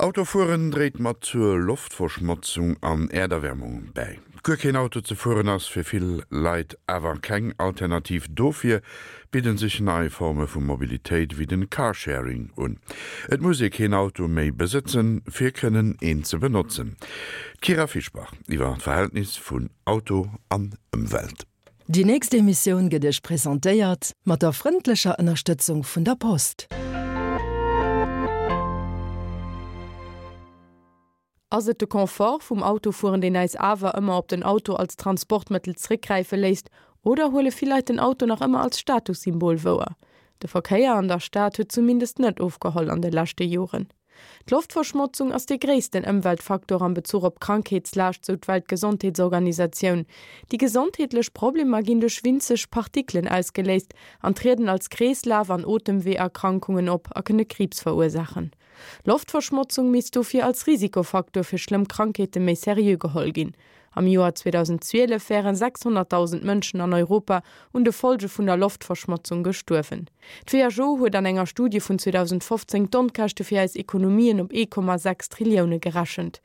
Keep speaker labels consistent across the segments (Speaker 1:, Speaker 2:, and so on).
Speaker 1: Autofueren dréit mat zur Loftverschmotzung an Äerderwärmung bäi. Guer keen Auto ze fueren ass fir vill Leit awer keng Alternativ. Dofir bidden sech nei Forme vu Mobilitéit wéi den Carsharing un. Et muss ee keen Auto méi besëtzen, fir kënnen een ze benotzen. D'Kyra Fischbach iwwer d'Verhältnis vun Auto an Ëmwelt.
Speaker 2: Déi nächst Emissioun gëtt Iech presentéiert mat der frëndlecher Ënnerstëtzung vun der Post.
Speaker 3: Ass et de Confort vum Autofueren, deen äis awer ëmmer op den Auto als Transportmëttel zréckgräife léisst, oder huele vill Leit den Auto nach ëmmer als Statussymbol wouer? De Verkéier an der Stad huet zumindest net ofgeholl an de leschte Joren. D'Loftverschmotzung ass dee gréissten Ëmweltfaktor am Bezuch op Krankheetslaascht, sou d'Weltgesondheetsorganisatioun. Déi gesondheetlech Problemer ginn duerch winzeg Partikelen ausgeléist an trieden als Kreeslaf an Otemweeërkrankungen op a kënne Kriibs verursaachen. Loftverschmotzung misst dofir als Risikofaktor fir schlëmm Krankheete méi seriö geholl ginn. Am Joer 2012 wären 600.000 Mënschen an Europa un de Folge vun der Loftverschmotzung gestuerwen. D'WHO huet an enger Studie vun 2015 d'Onkäschte fir eis Ekonomien op 1,6 Trillioune gerechent.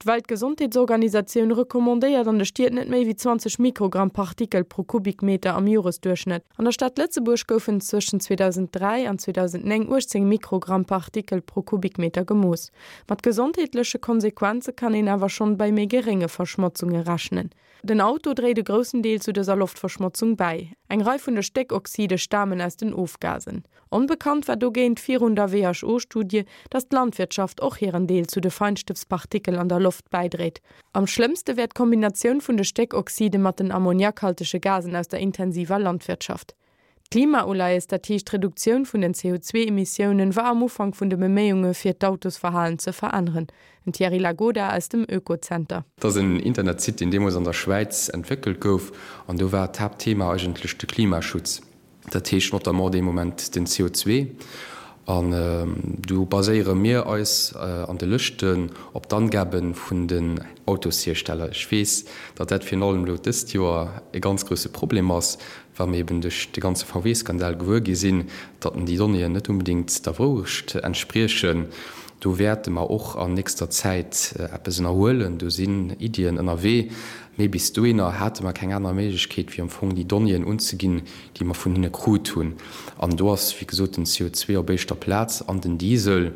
Speaker 3: D'Weltgesondheetsorganisatioun recommandéiert an de Stied net méi wéi 20 Mikrogramm Partikel pro Kubikmeter am Joresduerchschnëtt. An der Stad Lëtzebuerg goufen zwëschen 2003 an 2009 18 Mikrogramm Partikel pro Kubikmeter gemooss. Mat gesondheetleche Konsequenze kann een awer schonn bei méi gerénge Verschmotzunge rechnen. Den Auto dréit e groussen Deel zu dëser Loftverschmotzung bäi. Eng Rei vun de Stéckoxide stamen aus den Ofgasen. Onbekannt war dogéint virun der WHO-Studie, datt d'Landwirtschaft och hiren Deel zu de Feinstëbspartikel an der Loft bäidréit. Am schlëmmste wär d'Kombinatioun vun de Stéckoxide mat den ammoniakhaltege Gasen aus der intensiver Landwirtschaft. D'Klimauleies, dat heescht d'Reduktioun vun den CO2-Emissiounen, war am Ufank vun de Beméiunge fir d'Autosverhalen ze veränneren. Den Thierry Lagoda aus dem Oekozenter.
Speaker 4: Dat ass en Internetsite, deen deemools an der Schwäiz entwéckelt gouf an do war d'Haaptthema eigentlech de Klimaschutz. Dat heescht notamment dee Moment den CO2. An do baséiere mir eis an de Lëschten op d'Angabe vun den Autoshiersteller. Ech weess, datt dat virun allem elo dëst Joer e ganz grousse Problem ass, well mir eben duerch de ganze VW-Skandal gewuer gi sinn, datt déi Donnéeën net unbedéngt der Wourecht entspriechen. Do wäerte mer och an nächster Zäit eppes ënnerhuelen. Do sinn Iddien ënnerwee. Mee bis dohinner hate mer keng aner Méiglechkeet, wéi am Fong déi Donnéeën unzeginn, déi mer vun hinne krut hunn. An do ass, wéi gesot, den CO2 op éischter Plaz an den Diesel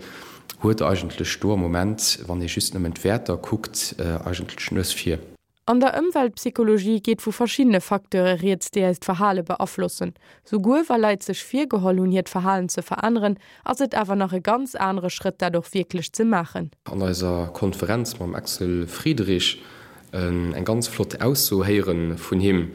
Speaker 4: huet eigentlech do am Moment, wann ee just nëmmen d'Wäerter kuckt, eigentlech d'Nues vir.
Speaker 3: An der Ëmweltpsychologie geet vu verschiddene Facteure rieds, déi eist Verhale beaflossen. Souguer wa Leit sech virgeholl hunn, hiert Verhalen ze veränneren, ass et awer nach e ganz anere Schrëtt, dat och wierklech ze maachen.
Speaker 4: An eiser Konferenz mam Axel Friedrich eng ganz flott Ausso héiere vun him,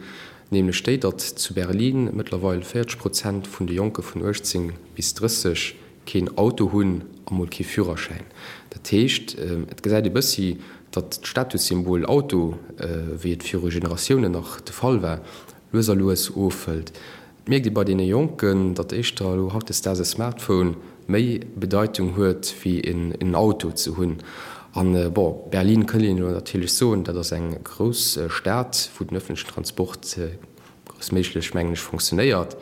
Speaker 4: nämlech déi, datt zu Berlin mëttlerweil 40 Prozent vun de Jonke vun 18 bis 30 keen Auto hunn a mol kee Führerschäin. Dat heescht, et gesäit ee bëssi, datt d'Statussymbol Auto, wéi et viru Generatiounen nach de Fall war, lues a lues ofhëlt. Et mierkt ee bei deene Jonken, datt éischter elo hautdesdaags e Smartphone méi Bedeitung huet, wéi en Auto ze hunn. An, bon, Berlin kënnt een elo natierlech soen, dat ass eng grouss Stad, wou den ëffentlechen Transport groussméiglech, mengen ech, fonctionnéiert.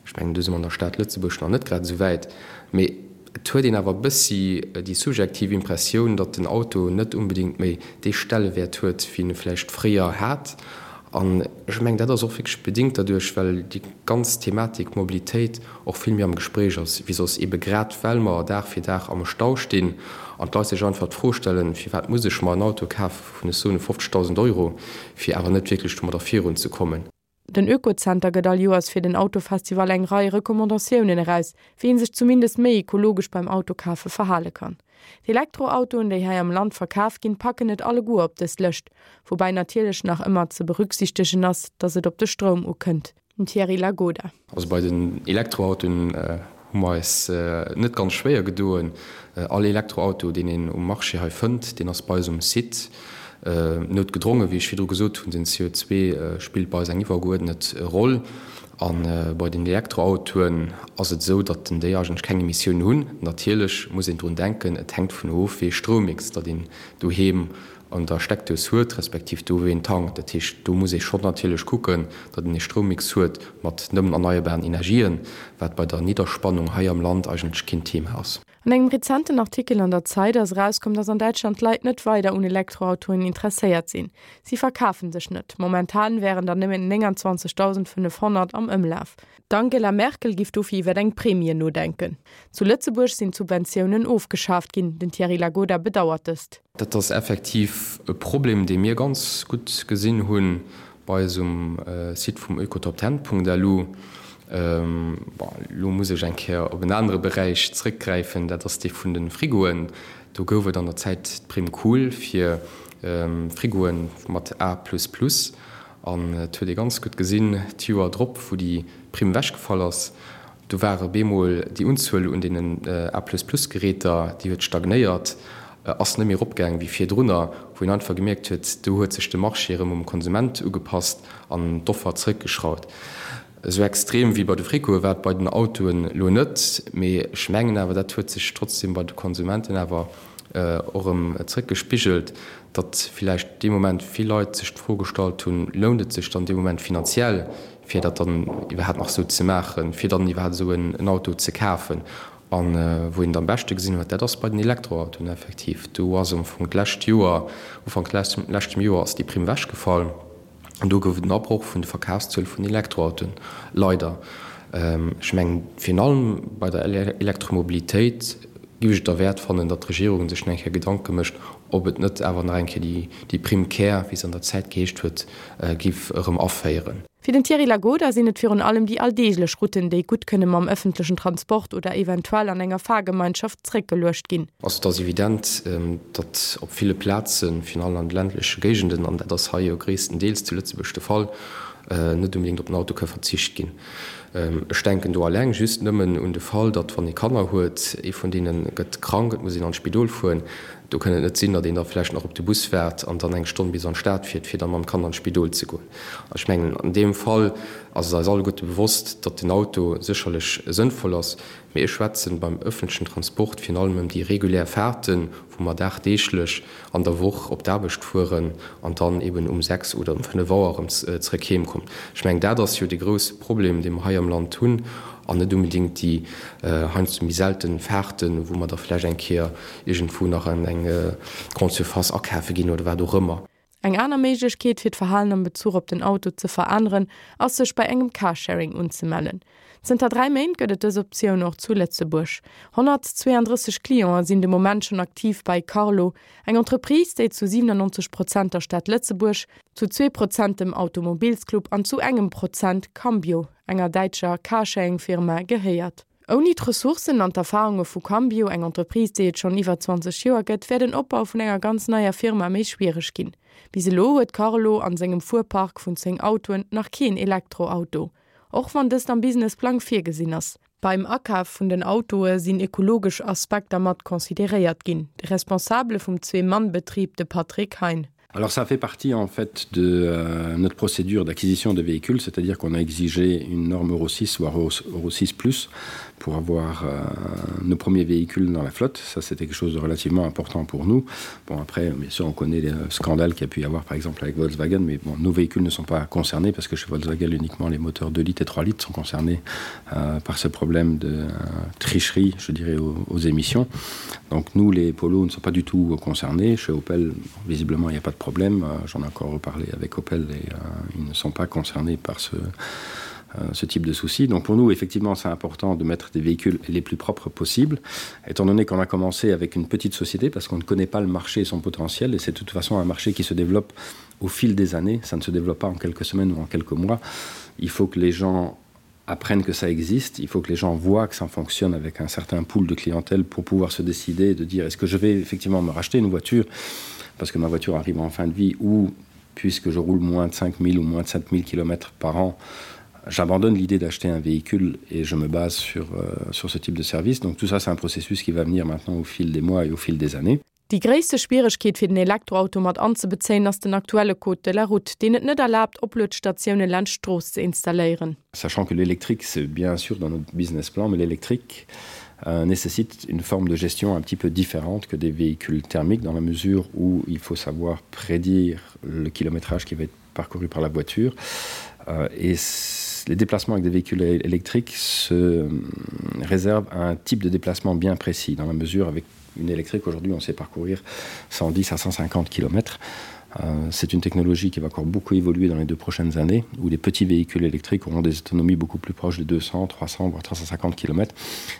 Speaker 4: Ech mengen, do si mer an der Stad Lëtzebuerg nach net grad esou wäit. Mee et huet een awer e bëssi déi subjektiv Impressioun, datt den Auto net unbedéngt méi dee Stellewäert huet, wéi en e vläicht fréier hat. An ech mengen, dat ass och wierklech bedéngt derduerch, well déi ganz Thematik Mobilitéit och vill méi am Gespréich ass wéi soss, eebe grad well mer Dag fir Dag am Stau stinn an d'Leit sech einfach d'Fro stellen, Firwat muss ech mer en Auto kafe vun, ech soen, 50.000 Euro, fir awer net wierklech domadder virunzekommen?
Speaker 3: Den Oekozenter gëtt all Joers fir den Autofestival eng Rei Recommandatiounen eraus, wéi een sech zumindest méi ekologesch beim Autokafe verhale kann. D'Elektroautoen, déi hei am Land verkaf ginn, packen et alleguer op dës Lëscht, woubäi natierlech nach ëmmer ze berücksichtegen ass, datt et op de Stroum ukënnt. Den Thierry Lagoda.
Speaker 4: Also bei den Elektroautoen hu mer eis net ganz schwéier gedoen. All Elektroauto, deen een um Marché hei fënnt, deen ass bei eis um Site. Noutgedrongen, wéi ech virdru gesot hunn, den CO2 spillt bei eis eng iwwergeuerdnet Roll. A bei den Elektroautoen ass et esou, datt déi eigentlech keng Emissiounen hunn. Natierlech muss een drun denken, et hänkt vun of, wéi ee Stroumix datt een doheem an der Steckdous huet, respektiv do wou een tankt. Dat heescht, do muss ee schonn natierlech kucken, datt een ee Stroummix huet mat nëmmen erneierbaren Energien, wat bei der Nidderspannung hei am Land eigentlech keen Thema ass.
Speaker 3: An engem rezenten Artikel an der Zeit ass erauskomm, dass an Däitschland d'Leit net weider un Elektroautoen interesséiert sinn. Si verkafen sech net. Momentan wären der nëmmen 29.500 am Ëmlaf. D'Angela Merkel giff dofir iwwer eng Premie nodenken. Zu Lëtzebuerg sinn d'Subventiounen ofgeschaaft ginn. Den Thierry Lagoda bedauert dëst.
Speaker 4: Dat ass effektiv e Problem, dee mir ganz gutt gesinn hunn bei eis um Site vum oekotopten.lu. Bon, elo muss ech eng Kéier op en anere Beräich zrëckgräifen, dat ass dee vun de Frigoen. Do gouf et an der Zäit d'Prime Cool fir Frigoe mat A plus plus. An et huet ee ganz gutt gesinn, d'Joer drop, wou déi Primm ewechgefall ass, do war op eemol déi Unzuel un deenen A-plus-plus-Geräter, déi huet stagnéiert, ass net méi eropgaang wéi virdrunner, wou een einfach gemierkt huet, do huet sech de Marché erëm um Konsument ugepasst an d'Offer zrëckgeschrauft. Esou extrem wéi bei de Frigoe war et bei den Autoen elo net, mee ech mengen awer, dat huet sech trotzdem bei de Konsumenten awer och erëm zrëckgespigelt, datt villäicht dee Moment vill Leit sech d'Fro gestallt hunn, Lount et sech dann dee Moment finanziell, fir dat dann iwwerhaapt nach esou ze maachen, fir dann iwwerhaapt esou en Auto ze kafen? A wou een et am beschte gesinn huet, dat ass bei den Elektroautoen effektiv. Do ass am Fong d'lescht Joer, Ufank leschtem Joer ass déi Primm ewechgefall. An do gouf et en Abroch vun de Verkafszuele vun Elektroautoen, leider. Ech mengen, virun allem bei der Elektromobilitéit géif ech et derwäert fannen, datt d'Regierung sech nach eng Kéier Gedanke mécht, ob et net awer nach eng Kéier déi Prime Care, wéi se an der Zäit geheescht huet, géif erëm aféieren.
Speaker 3: Fir den Thierry Lagoda sinn et virun allem déi alldeeglech Routen, déi gutt kënne mam ëffentlechen Transport oder eventuell an enger Fahrgemeinschaft zréckgeluecht ginn.
Speaker 4: Also et ass evident, datt op ville Plazen, virun allem an de ländleche Géigenden, an dat ass hei jo gréisstendeels zu Lëtzebuerg de Fall, net unbedéngt op den Auto ka verzicht ginn. Ech denken do alleng just nëmmen un de Fall, datt wann ee Kanner huet, ee vun deene gëtt krank, et muss een an d'Spidol fueren, do kënn et net sinn, datt een da vläicht nach op de Bus waart an dann eng Stonn bis an d'Stad fiert, fir da mam Kand an d'Spidol ze goen. Ech mengen, an deem Fall ass et eis alleguerte bewosst, datt den Auto sécherlech sënnvoll ass, mee ech schwätzen beim öffentlechen Transport virun allem ëm déi regulär Fahrten, wou mer dagdeeglech an der Woch op d'Aarbecht fueren an dann eben um 6 oder um 5 Auer erëm zrëck heem kommen. Ech mengen, dat ass jo dee grouse Problem, dee mer hei am Land hunn, an net unbedéngt déi heiansdo méi selten Fahrten, wou mer da vläicht eng Kéier iergendwou nach an eng Grande Surface akafe ginn oder wat och ëmmer.
Speaker 3: Eng aner Méiglechkeet fir d'Verhalen am Bezuch op den Auto ze veränneren, ass sech bei engem Carsharing unzemellen. Zënter 3 Méint gëtt et dës Optioun och zu Lëtzebuerg. 132 Clienten sinn de Moment schonn aktiv bei Carlo, eng Entreprise, déi zu 97 Prozent der Stad Lëtzebuerg, zu zwee Prozent dem Automobilsclub an zu engem Prozent Cambio, enger däitscher Carsharing-Firma, gehéiert. Ouni d'Ressourcen an d'Erfarunge vu Cambio, eng Entreprise, déi et schonn iwwer 20 Joer gëtt, wär den Opbau vun enger ganz neier Firma méi schwiereg ginn. Bis elo huet Carlo an sengem Fuerpark vun 10 Autoen nach keen Elektroauto, och wann dëst am Businessplang virgesinn ass. Beim Akaf vun den Autoe sinn ekologesch Aspekter mat consideréiert ginn. De Responsabele vum Zwee-Mann-Betrib, de Patrick Hein.
Speaker 5: Alors ça fait partie en fait de euh, notre procédure d'acquisition de véhicules, c'est-à-dire qu'on a exigé une norme Euro 6 voire Euro, Euro 6 plus pour avoir euh, nos premiers véhicules dans la flotte. Ça c'était quelque chose de relativement important pour nous. Bon après bien sûr on connaît les scandales qu'il y a pu y avoir par exemple avec Volkswagen, mais bon, nos véhicules ne sont pas concernés parce que chez Volkswagen uniquement les moteurs 2 litres et 3 litres sont concernés euh, par ce problème de euh, tricherie, je dirais aux, aux émissions. Donc nous les polos ne sont pas du tout concernés. Chez Opel visiblement il n'y a pas de problème. Euh, j'en ai encore reparlé avec Opel et euh, ils ne sont pas concernés par ce, euh, ce type de souci. Donc pour nous, effectivement, c'est important de mettre des véhicules les plus propres possibles, étant donné qu'on a commencé avec une petite société parce qu'on ne connaît pas le marché et son potentiel et c'est de toute façon un marché qui se développe au fil des années, ça ne se développe pas en quelques semaines ou en quelques mois. Il faut que les gens apprennent que ça existe, il faut que les gens voient que ça fonctionne avec un certain pool de clientèle pour pouvoir se décider de dire est-ce que je vais effectivement me racheter une voiture parce que ma voiture arrive en fin de vie ou puisque je roule moins de 5000 ou moins de 7000 km par an, j'abandonne l'idée d'acheter un véhicule et je me base sur, euh, sur ce type de service. Donc tout ça c'est un processus qui va venir maintenant au fil des mois et au fil des années.
Speaker 3: Déi gréisste Schwieregkeet fir den Elektroauto mat anzebezéien ass den aktuelle Code de la route, deen et net erlaabt, Opluetstatioune laanscht d'Strooss ze installéieren.
Speaker 5: Sachant que l'électrique c'est bien sûr dans notre business plan, mais l'électrique euh, nécessite une forme de gestion un petit peu différente que des véhicules thermiques dans la mesure où il faut savoir prédire le kilométrage qui va être parcouru par la voiture euh, et c'est. Les déplacements avec des véhicules électriques se euh, réservent à un type de déplacement bien précis dans la mesure avec une électrique aujourd'hui on sait parcourir 110 à 150 km. Euh, c'est une technologie qui va encore beaucoup évoluer dans les deux prochaines années où les petits véhicules électriques auront des autonomies beaucoup plus proches de 200, 300 voire 350 km.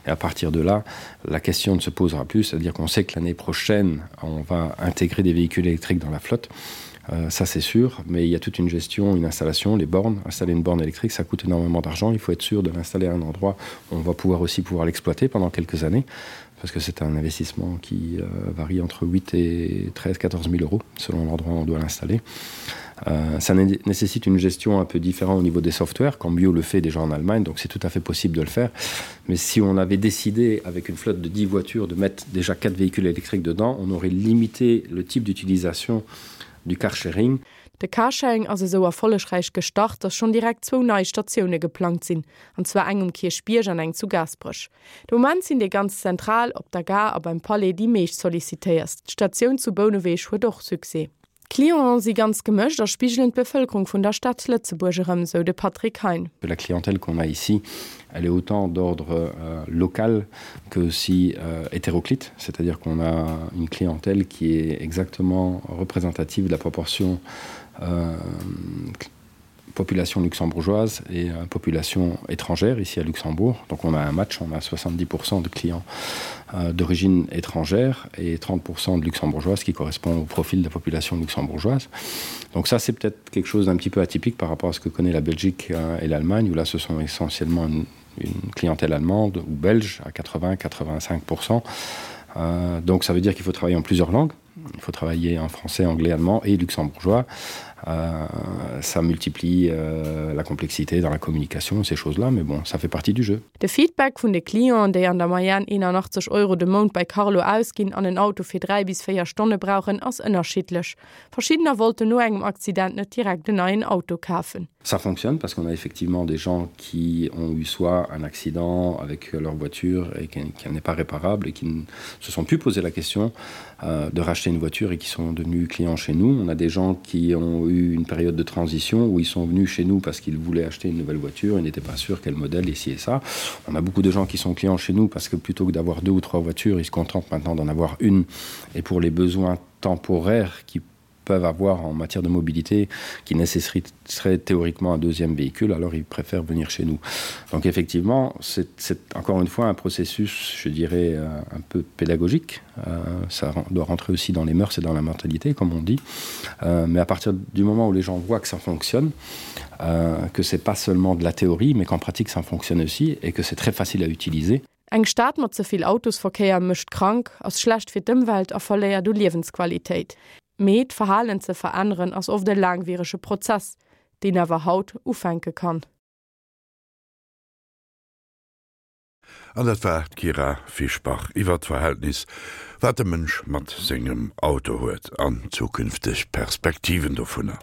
Speaker 5: Et à partir de là, la question ne se posera plus, c'est-à-dire qu'on sait que l'année prochaine, on va intégrer des véhicules électriques dans la flotte. Euh, ça c'est sûr, mais il y a toute une gestion, une installation, les bornes, installer une borne électrique, ça coûte énormément d'argent, il faut être sûr de l'installer à un endroit où on va pouvoir aussi pouvoir l'exploiter pendant quelques années parce que c'est un investissement qui euh, varie entre 8 et 13 14 000 euros selon l'endroit où on doit l'installer. Euh, ça né nécessite une gestion un peu différente au niveau des softwares, quand Bio le fait déjà en Allemagne, donc c'est tout à fait possible de le faire. Mais si on avait décidé avec une flotte de 10 voitures de mettre déjà quatre véhicules électriques dedans, on aurait limité le type d'utilisation du carsharing.
Speaker 3: De Carsharing ass esou erfollegräich gestart, datt schonn direkt zwou nei Statioune geplangt sinn, an zwar eng um Kierchbierg an eng zu Gaasperech. De Moment sinn déi ganz zentral, op der Gare a beim Palais, déi meescht sollicitéierst. D'Statioun zu Bouneweg huet och Succès. D'Clienten si ganz gemëscht a spigelen d'Bevëlkerung vun der Stad Lëtzebuerg erëm, sou de Patrick Hein.
Speaker 5: La clientèle qu'on a ici, elle est autant d'ordre euh, local que aussi euh, hétéroclite, c'est-à-dire qu'on a une clientèle qui est exactement représentative de la proportion euh, population luxembourgeoise et euh, population étrangère ici à Luxembourg. Donc on a un match, on a 70% de clients euh, d'origine étrangère et 30% de luxembourgeoises qui correspond au profil de la population luxembourgeoise. Donc ça c'est peut-être quelque chose d'un petit peu atypique par rapport à ce que connaît la Belgique euh, et l'Allemagne où là ce sont essentiellement une, une clientèle allemande ou belge à 80 85%. Euh, donc ça veut dire qu'il faut travailler en plusieurs langues. Il faut travailler en français, anglais, allemand et luxembourgeois. Euh, ça multiplie euh, la complexité dans la communication, ces choses-là, mais bon, ça fait partie du jeu.
Speaker 3: De Feedback vun de Clienten, déi an der Moyenne 81 Euro de Mount bei Carlo ausginn an en Auto fir 3 bis 4 Stonne brauchen, ass ënnerschiddlech. Verschiddener wollten no engem Accident net direkt en neien Auto kafen.
Speaker 5: Ça fonctionne parce qu'on a effectivement des gens qui ont eu soit un accident avec leur voiture et qui, qui n'est pas réparable et qui ne se sont plus posé la question euh, de racheter une voiture et qui sont devenus clients chez nous. On a des gens qui ont eu une période de transition où ils sont venus chez nous parce qu'ils voulaient acheter une nouvelle voiture et n'étaient pas sûrs quel modèle ici et ça. On a beaucoup de gens qui sont clients chez nous parce que plutôt que d'avoir deux ou trois voitures, ils se contentent maintenant d'en avoir une et pour les besoins temporaires qui peuvent avoir en matière de mobilité qui nécessiterait théoriquement un deuxième véhicule, alors ils préfèrent venir chez nous. Donc effectivement, c'est encore une fois un processus, je dirais, euh, un peu pédagogique. Euh, ça doit rentrer aussi dans les mœurs et dans la mentalité, comme on dit. Euh, mais à partir du moment où les gens voient que ça fonctionne, euh, que c'est pas seulement de la théorie, mais qu'en pratique ça fonctionne aussi et que c'est très facile à utiliser.
Speaker 3: Eng Stad mat ze vill Autosverkéier mécht krank, ass schlecht fir d'Ëmwelt a verléiert u Liewensqualitéit. Mee d'Verhalen ze veränneren ass oft e laangwierege Prozess, deen awer haut ufänke kann.
Speaker 1: An dat war d'Kyra Fischbach iwwer d'Verhältnis, wat de Mënsch mat sengem Auto huet an zukünfteg Perspektiven dovunner.